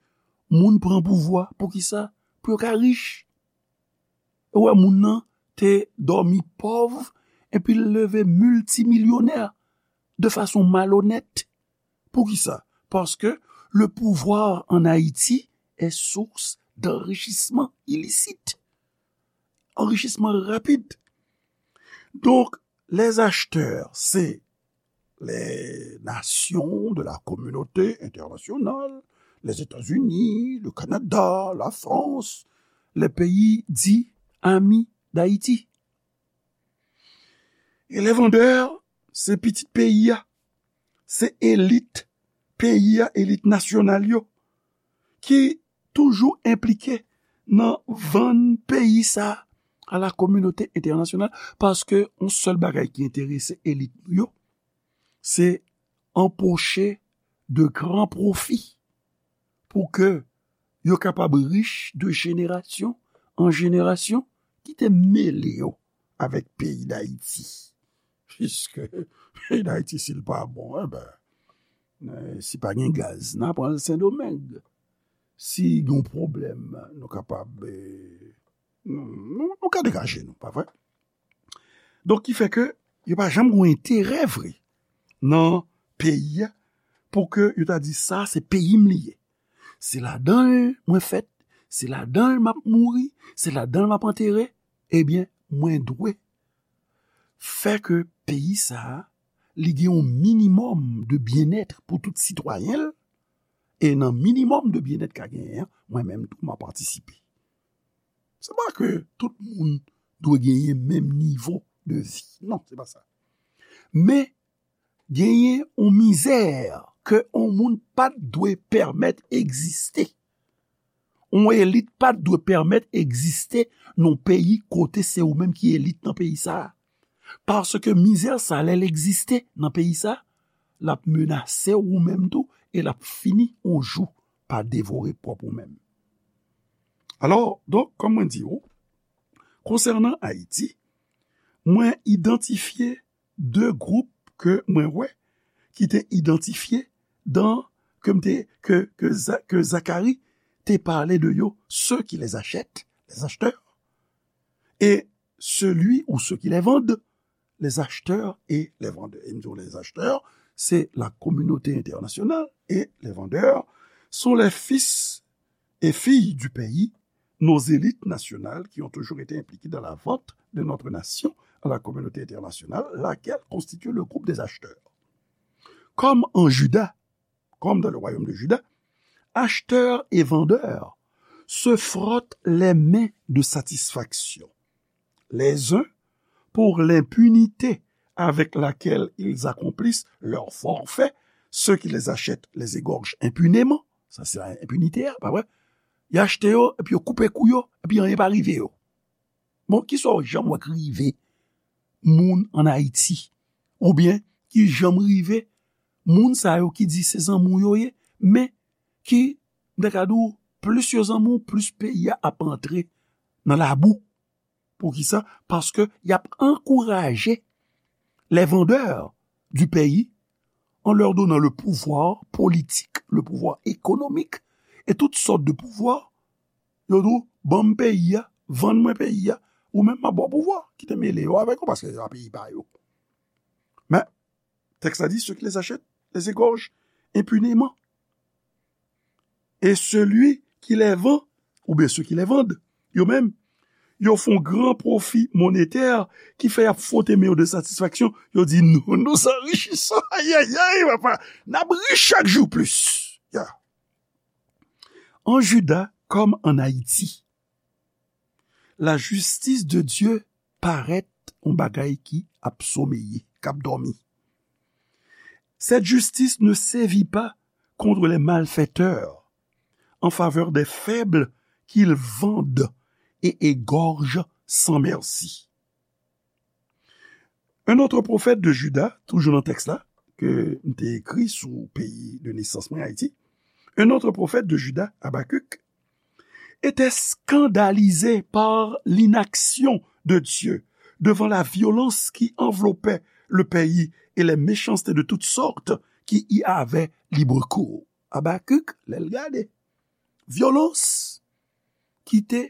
moun pran pouvwa, poukisa? Pou yo ka rich. Ou wè, moun nan te dòmi pòv, epi l leve miltimilyonè de fason malonèt. Poukisa? Parce que le pouvoir en Haïti est source d'enrichissement illicite. Anrichisman rapid. Donk, les acheteurs, c'est les nations de la communauté internationale, les États-Unis, le Canada, la France, les pays dits amis d'Haïti. E les vendeurs, se pitit peyi a, se elit peyi a, elit nasyonal yo, ki toujou enplike nan vann peyi sa a la kominote entènasyonal, paske yon sèl bagay ki enterese elit nou yo, se anpoche de gran pwofi pou ke yo kapab rich de jenerasyon an jenerasyon. Kite m mele yo avèk peyi Dayiti. Piske peyi Dayiti, si l pa bon, enben, eh, si pa gen gaz, n a pran l Sendomeng. Si gen pwoblèm, nou kapab, eh, nou, nou, nou ka degaje nou, pa vre? Donk, ki fè ke yo pa janm gen enterè vre nan peyi a, pou ke yo ta di, sa, se peyi m li ye. Se ladan l mwen fèt, se ladan l m ap mouri, se ladan l m ap antere. Ebyen, mwen dwe fè ke peyi sa a, li gen yon minimòm de byennèt pou tout sitwayen l, e nan minimòm de byennèt k a genyen an, mwen menm tou, m a patisipe. Se pa ke tout moun dwe genyen menm nivo de vi. Non, se pa sa. Men, genyen yon mizè ke yon moun pa t dwe pèmèt egziste. Yon elit pa t dwe pèmèt egziste nan yon peyi kote se ou menm ki elit nan peyi sa a. Paske mizè sa, lè l egziste nan peyi sa, l ap menase ou menm tou, e l ap fini yon jou pa devore pwòp ou menm. Alò, donk, kòm mwen di w, konsènan Ayiti, mwen idantifye de gwoup ke mwen wè ki te idantifye dan, ke m te, ke, ke Za-, ke Zakari te pale de yo, ceux qui les achètent, les acheteurs, et celui ou ceux qui les vendent, les acheteurs et les vendeurs. E m di w, les acheteurs, c'est la communauté internationale, et les vendeurs sont les fils et filles du pays, nos élites nationales qui ont toujours été impliquées dans la vente de notre nation à la communauté internationale, laquelle constitue le groupe des acheteurs. Comme en Juda, comme dans le royaume de Juda, acheteurs et vendeurs se frottent les mains de satisfaction, les uns pour l'impunité avec laquelle ils accomplissent leur forfait, ceux qui les achètent les égorgent impunément. Sa se enpinite a, pa vre? Y achte yo, epi yo koupe kou yo, epi anyen pa rive yo. Bon, kisa w janm wè k rive moun ann Ayiti? Oubyen ki janm rive moun sa yo ki di se zanmi w yo ye, men ki, m ta ka di w, plis yo zanmi w, plis peyi a ap antre nan labou. Poukisa? Paske y ap ankouraje les vendeurs du pays en leur donnant le pouvoir politique, le pouvoir économique et toutes sortes de pouvoirs. Yo di w, ban m peyi a, vann mwen peyi a, ou menm m ap ba w pouvwa, kite m mele yo avèk ou, paske se pa peyi pa yo. Men, tèks la di, ceux qui les achètent les égorgent impunément. Et celui qui les vend, oubyen ceux qui les vendent, yo menm, yo fè yon gran pwofi monetè ki fè y ap fwote men yo de satisfaksyon. Yo di, nous nous enrichissons. Ayayay, papa, n ap rich chak jou plis. Ya. En Juda comme en Haïti, la justice de Dieu parèt yon bagay ki ap someye, k ap dòmi. Cette justice ne sévit pas contre les malfaiteurs, en faveur des faibles qu'ils vendent et égorgent sans merci. Un autre prophète de Juda, toujou nan tèks la, ke m te ekri sou peyi de nesans mwen, Ayiti. Un autre prophète de Juda, Habacuc, était scandalisé par l'inaction de Dieu devant la violence qui enveloppait le pays et les méchancetés de toutes sortes qui y avaient libre cours. Habacuc, lè l gade vyolans ki te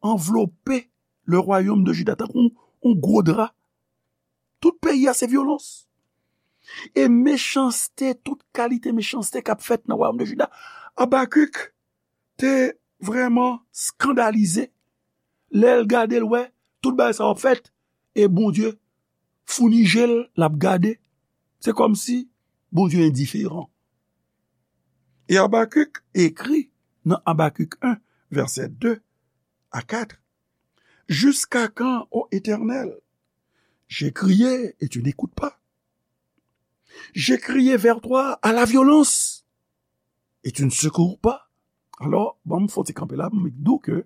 anvlope le royaume de Juda, tankou yon gwo dra. Tout peyi a se vyolans. E mechanste, tout kalite mechanste k ap fèt nan wayòm de Jida. Abakik te vrèman eskandalize lè l gade, l wè tout bagay sa yo ap fèt, e Bondye founi je l, l ap gade. Se kòmsi Bondye endiferan. E Abakik ekri nan Abakik en, vèsè de a kat, Jusqu'à quand, ô Éternel, j'ai crié et tu n'écoutes pas. J'ai crié vers toi à la violence et tu ne secours pas. Alò, ban m fè yon ti kanpe la, m di w ke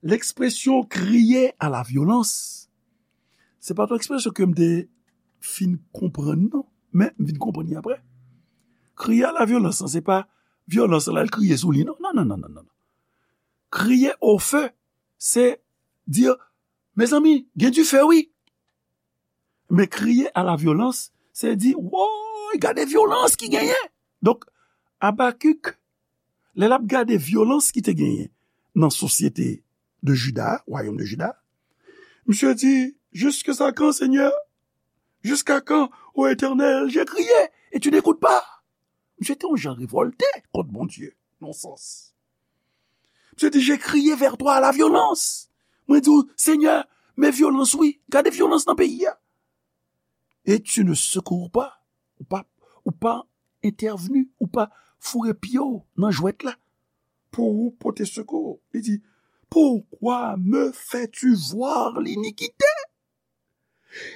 lekspresyon crier à la violence, se pa t yon ekspresyon ke m te fin konprann, non. Men, m vin konprann li apre. Crier à la violence, se pa vyolans la, l kriye sou li, non. Non, non, non, non, non. Crier au feu, se di, mezanmi, gen dife, wi. Men crier à la violence, se di, woy, gade vyolans ki genyen. Donk, Abakik, lè l ap gade vyolans ki te genyen nan sosyete de Jida, wayòm de Jida, misye di, jusqu'à quand, Seigneur? Jusqu'à quand, ô Éternel, j'ai crié et tu n'écoutes pas? Misye te yon jan revòlte kont Bondye, nan sans. Misye di, j'ai crié vers toi à la violence. Mwen di w, Senyè, men vyolans, wi. Gade vyolans nan peyi a. Et tu ne secours pas. Ou pa, ou pa entèvni, ou pa foure pye w nan jwèt la pou ou pote sekou. Li di, pourquoi me fais-tu voir l'iniquité?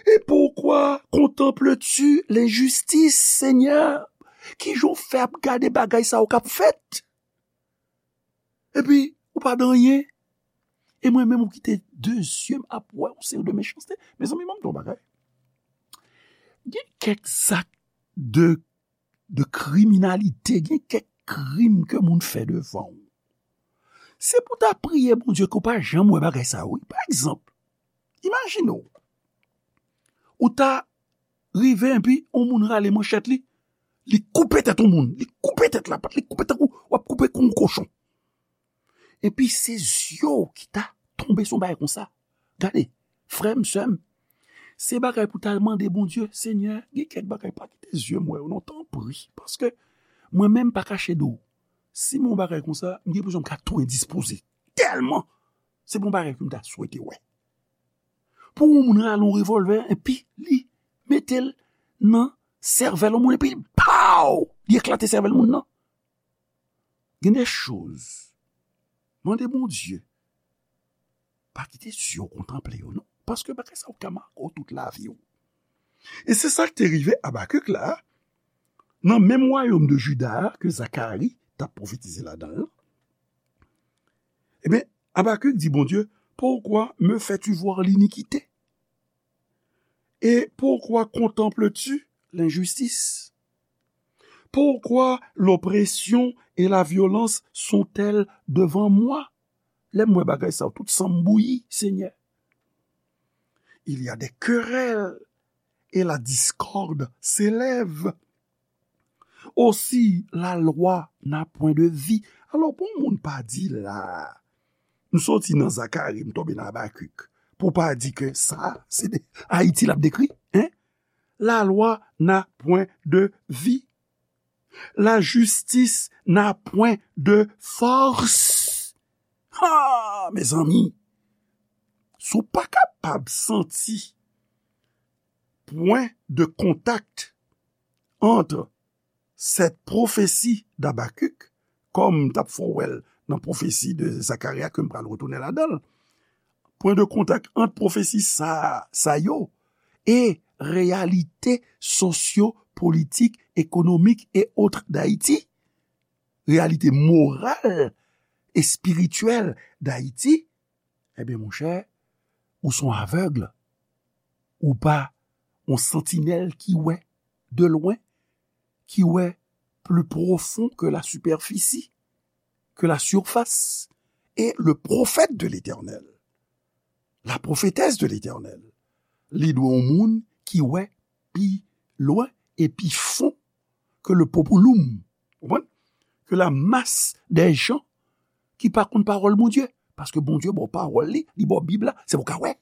Et pourquoi contemples-tu l'injustice, Seigneur? Kijan w fè ap gade bagay sa yo k ap fèt? Epi, ou pa di anyen. E mwen menm ou kite de zye m ap wè yon seri de mechanste. Mezanmi, ban m di w yon bagay. Gen kèk zak de, de kriminalite, gen kèk krim ke moun fè devan w. Se pou w ta priye Bondye ke w pa janm wè bagay sa yo, wi. Pa egzanp, imajine w, ou ta rive epi yon moun rale manchèt li, li koupe tèt yon moun, li koupe tèt lapat, li koupe tankou w ap koupe kou yon kochon. Epi se zye w ki ta tonbe sou yon bagay konsa. Gade, frè m, sè m, se bagay pou ta mande Bondye, Senyè, gen kèk bagay pa kite zye m wè yo non, tanpri, paske mwen menm pa kache de w. Si m wè yon bagay konsa, m gen enpresyon m ka tou endispoze. Tèlman, se pa yon bagay ke m ta swete wè. Pou yon moun rale yon revòlvè, epi li mete l nan sèvèl yon moun, epi paw! Li eklate sèvèl moun nan. Gen de choz. Mande Bondye. Pa kite zye w kontanple yo, non. Paske bagay sa yo ka make w tout lavi w. E se sa k te rive Abakik la, nan menm wayòm de Jida a ke Zakari t ap pwofetize ladan l lan. Ebyen, Abakik di Bondye, pourquoi me fais-tu voir l'iniquité? Et pourquoi contemples-tu l'injustice? Pourquoi l'oppression et la violence sont-elles devant moi? Lè m wè bagay sa yo, tout san m bouyi, Senyè. Il y a des querelles et la discorde s'élève. Aussi, la loi n'a point de vie. Alò, pou yon moun pa di la, m soti nan Zakari, m tonbe nan Abakik, pou pa di ke sa, se de Ayiti l ap dekri, en? La loi n'a point de vie. La justice n'a point de force. Ha, mezanmi, si w pa kapab santi pwen de kontak ant cette prophétie d'Habacuc, kòm m t ap fè w wè l nan pwofesi de Zakarya ke m pral retounen ladan l. Pwen de kontak ant pwofesi sa, sa yo e reyalite sosyo-politik, ekonomik e otre d'Ayiti, reyalite moral, espirityèl d'Ayiti, ebyen, monchè, ou se yon avèg. Ou pa yon santinèl ki wè de lwen, ki wè plus profond que la superficie, que la surface, et le prophète de l'Éternel, la prophétesse de l'Éternel, li dwe yon moun ki wè pi lwen e pi fon ke le populum, konprann? Ke la mas dè jan ki pa konn pawòl Bondye. Paske Bondye ba w pawòl li, li ba w Bib la, se pou w ka wè.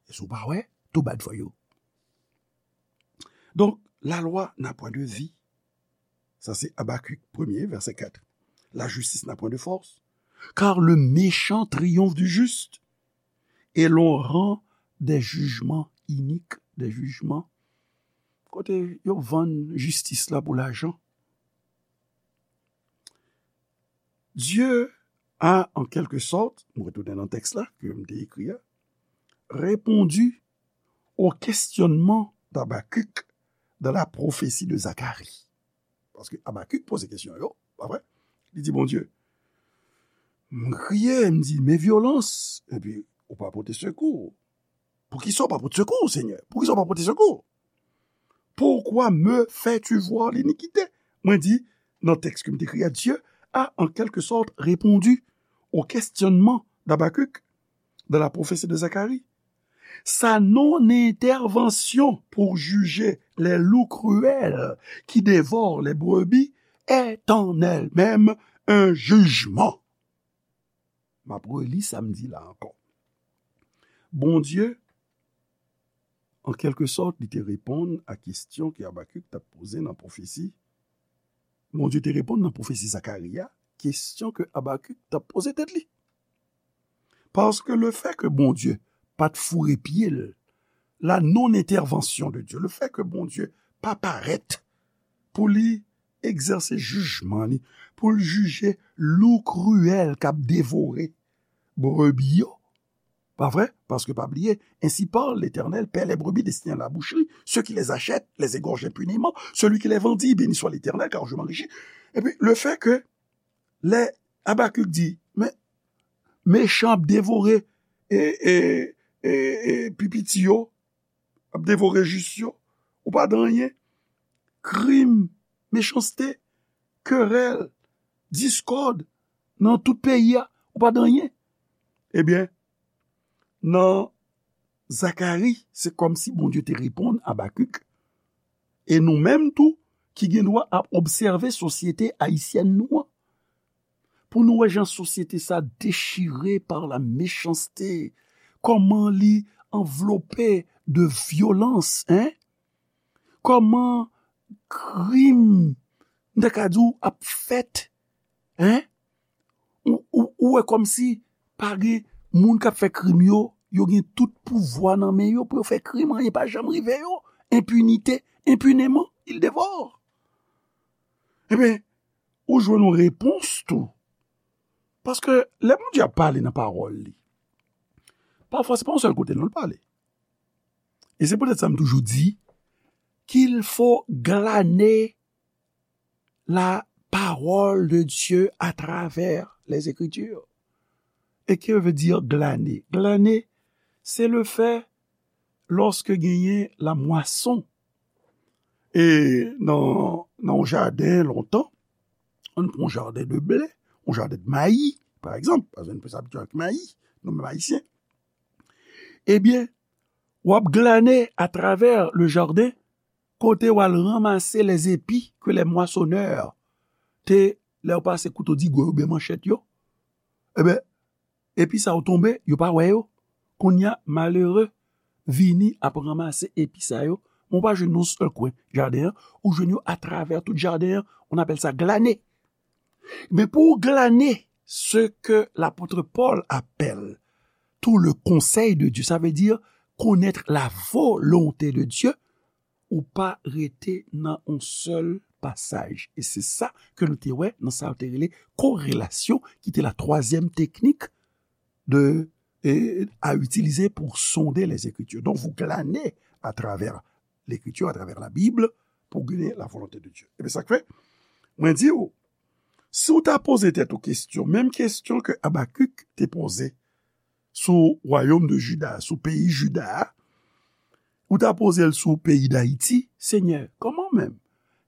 E si w pa wè, too bad for you. Donc, la loi n'a point de vie. Ça, c'est Habacuc premier, verset quatre. La justice n'a point de force, car le méchant triomphe du juste, et l'on rend des jugements iniques, des jugements kote yo vann jistis la pou lajan. Dieu a, en quelque sorte, m retounen nan tèks la ke m te ekri a, répondu au questionnement d'Habacuc dans la prophétie de Zacharie. Paske Habacuc poze kesyon yo, pa vre? Li di, Bondye, m kriye, m di, men vyolans, epi ou pa pote sekou. Poukisa w pa pote sekou, Senyè? Poukisa w pa pote sekou? Pourquoi me fais-tu voir l'iniquité? Mwen di, nan tèks ke m te ekri a, Dieu a, en quelque sorte, répondu au questionnement d'Habacuc dans la prophétie de Zacharie. Sa non-intervention pour juger les loups cruels qui dévorent les brebis est en elle-même un jugement. M ap reli sa m di la ankò. Bondye, an kèlke sòt, li te reponn a kesyon ke Abakik t ap poze nan pwofesi. Bondye te reponn nan pwofesi Zakari a, kesyon ke Abakik t ap poze tèt li. Paske lefèt ke Bondye pa t foure pye l, la non-intervention de Dieu, lefèt ke Bondye pa parèt pou li egzèse jijman li, pou l jije lou kriyèl k ap devore brebi yo. Pa vre? Paske pa bliye, ainsi parle l'Éternel, paie les brebis destinées à la boucherie, ceux qui les achètent les égorgent impunément, celui qui les vendit, béni soit l'Éternel, car je m'enrichis. Epi, lefèt ke lè Abakik di, men, mechan ap devore e, e, e, e pi piti yo, ap devore jis yo, ou pa di anyen. Krim, mechanste, kerèl, diskòd nan tout peyi a, ou pa di anyen. Ebyen, nan Zakari, se kòmsi Bondye te reponn Abakik. E nou menm tou, ki gen dwa ap obsève sosyete ayisyèn nou an, pou nou wè jan sosyete sa dechire par la mechanste, kòman li anvlope de vyolans, en? Kòman krim, m ta ka di w, ap fèt, en? Ou, ou, ou wè kòmsi pa gen moun k ap fè krim yo, yo gen tout pouvwa nan men yo pou yo fè krim, anyen pa janm rive yo. Enpinite, impunément, il dévore. Ebyen, ou jwenn yon repons tou. Paske lè Bondye ap pale nan pawòl li, pafwa se pa yon sèl kote non l pale. E se poutèt sa m toujou di, qu'il faut glaner la parole de Dieu à travers les Écritures. E ke vle di glane? Glane, se lefèt lòske genyen lamwason. E nan, nan yon jaden lontan, ann pran yon jaden de ble, yon jaden de mayi, pa egzanp, paske nou plis abitye ak mayi, nou menm Ayisyen. Ebyen, w ap glane atravè le jardin, kote w al ranmase les épis que les moissonneurs te, lè yo pase kouto digò yo oubyen manchèt yo, ebyen, epi sa yo tonbe, yo pa wè yo. Kounye a, malere vini ap ranmase epi sa yo, men w pa jwenn yon sèl kwen jaden an, ou jwenn yo atravè tout jaden an, on appelle ça glaner. Men pou w glane ce que l'apôtre Paul appelle tout le conseil de Dieu, ça veut dire connaître la volonté de Dieu, ou pa rete nan yon sèl pasaj. E se sa ke nou te wè nan sa yo te rele korelasyon, ki te la twazyèm teknik de, e, à utiliser pour sonder les Écritures. Donc, vous glanez à travers l'Écriture, à travers la Bible, pour gagner la volonté de Dieu. Ebyen, sa k fè, mwen di w, si w ta poze tèt ou kesyon, menm kesyon ke Abakik te poze sou wayòm de Jida, sou peyi Jida a, ou ta poze l sou peyi Dayiti, Senyè, kòman menm?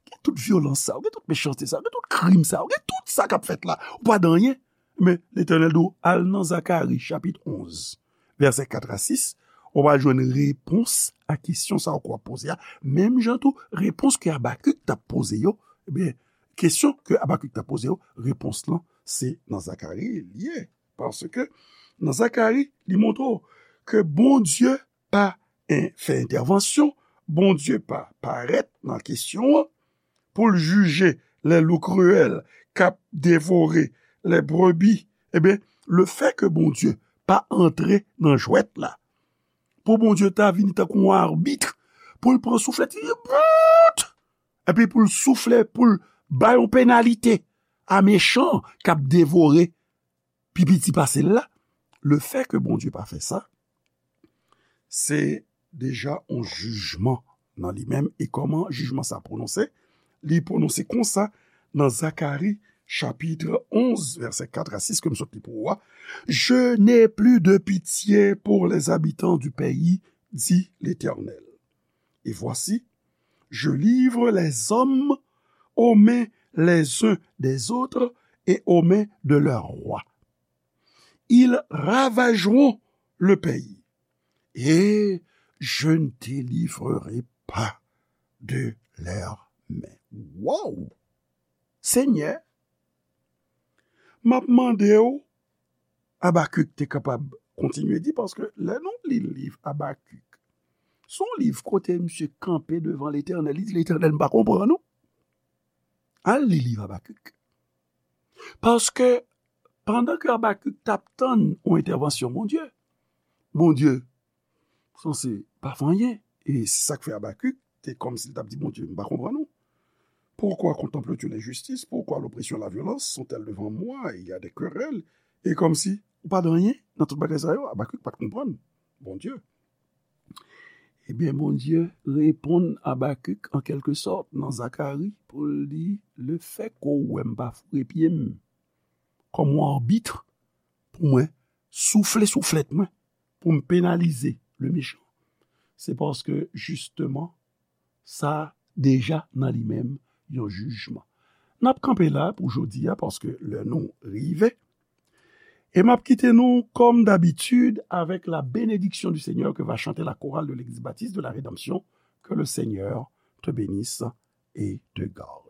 Gen tout vyolans sa, gen tout mechanste sa, gen tout krim sa, gen tout sa k ap fèt la, ou pa di anyen. Men Letènèl di w, al nan Zakari, chapit onz, vèsè kat a sis, ou va jwenn repons a kesyon sa w ap poze a. Menm jan tou, repons ke Abakik t ap poze yo, ebyen, kesyon ke Abakik t ap poze yo, repons lan, se nan Zakari li ye. Paske nan Zakari, li montre w ke Bondye pa en-, fè entèvansyon, Bondye pa parèt nan kesyon an pou l jije les loups cruels k ap devore les brebis. Ebyen, lefètke Bondye pa antre nan jwèt la, pou Bondye ta vini tankou yon abit, pou l pran souflèt, li bout! Epi pou l soufle, pou l bay yon penalite a mechan k ap devore pi piti pase l la, lefètke Bondye pa fè sa, se deja yon jijman nan li menm. E kòman jijman sa pwononse? Li pwononse konsa nan Zakari, chapit onz, vèsè kat a sis, ke m sot li pou ou a, Je n'ai plus de pitié pour les habitants du pays, dit l'Éternel. Et voici, je livre les hommes aux mains les uns des autres et aux mains de leurs rois. Ils ravageront le pays, et je ne délivrerai pas de leurs mains. Wow! Senyè, m ap mande w, Abakik te kapab kontinye di, paske lè nou li liv Abakik, se yon liv kote misye kanpe devan Letènèl, li di, Letènèl, m pa konprann ou. Al li liv Abakik. Paske pandan ke Abakik t ap tann yon entèvansyon Bondye, Bondye sanse pa fè anyen. E se sa k fè Abakik te kòmsi l t ap di Bondye, m pa konprann ou. Pourquoi contemples-tu l'injustice? Pourquoi l'oppression et la violence sont-elles devant moi? Il y a des querelles. E kòmsi ou pa di anyen nan tout bagay sa yo, Abakik pa t konprann Bondye. Ebyen, Bondye reponn Abakik, an kèlke sòt, nan Zakari, pou l di, lefètke w wè m pa foure pye m kòm yon abit pou mwen soufle souflèt mwen, pou m penalize le mechan, se paske, jisteman, sa deja nan li menm yon jijman. N ap kanpe la pou jodi a, paske lè nou rive. E m ap kite nou, comme d'habitude, avec la bénédiction du Seigneur que va chanter la chorale de l'Église baptiste de la Rédemption. Que le Seigneur te bénisse et te garde.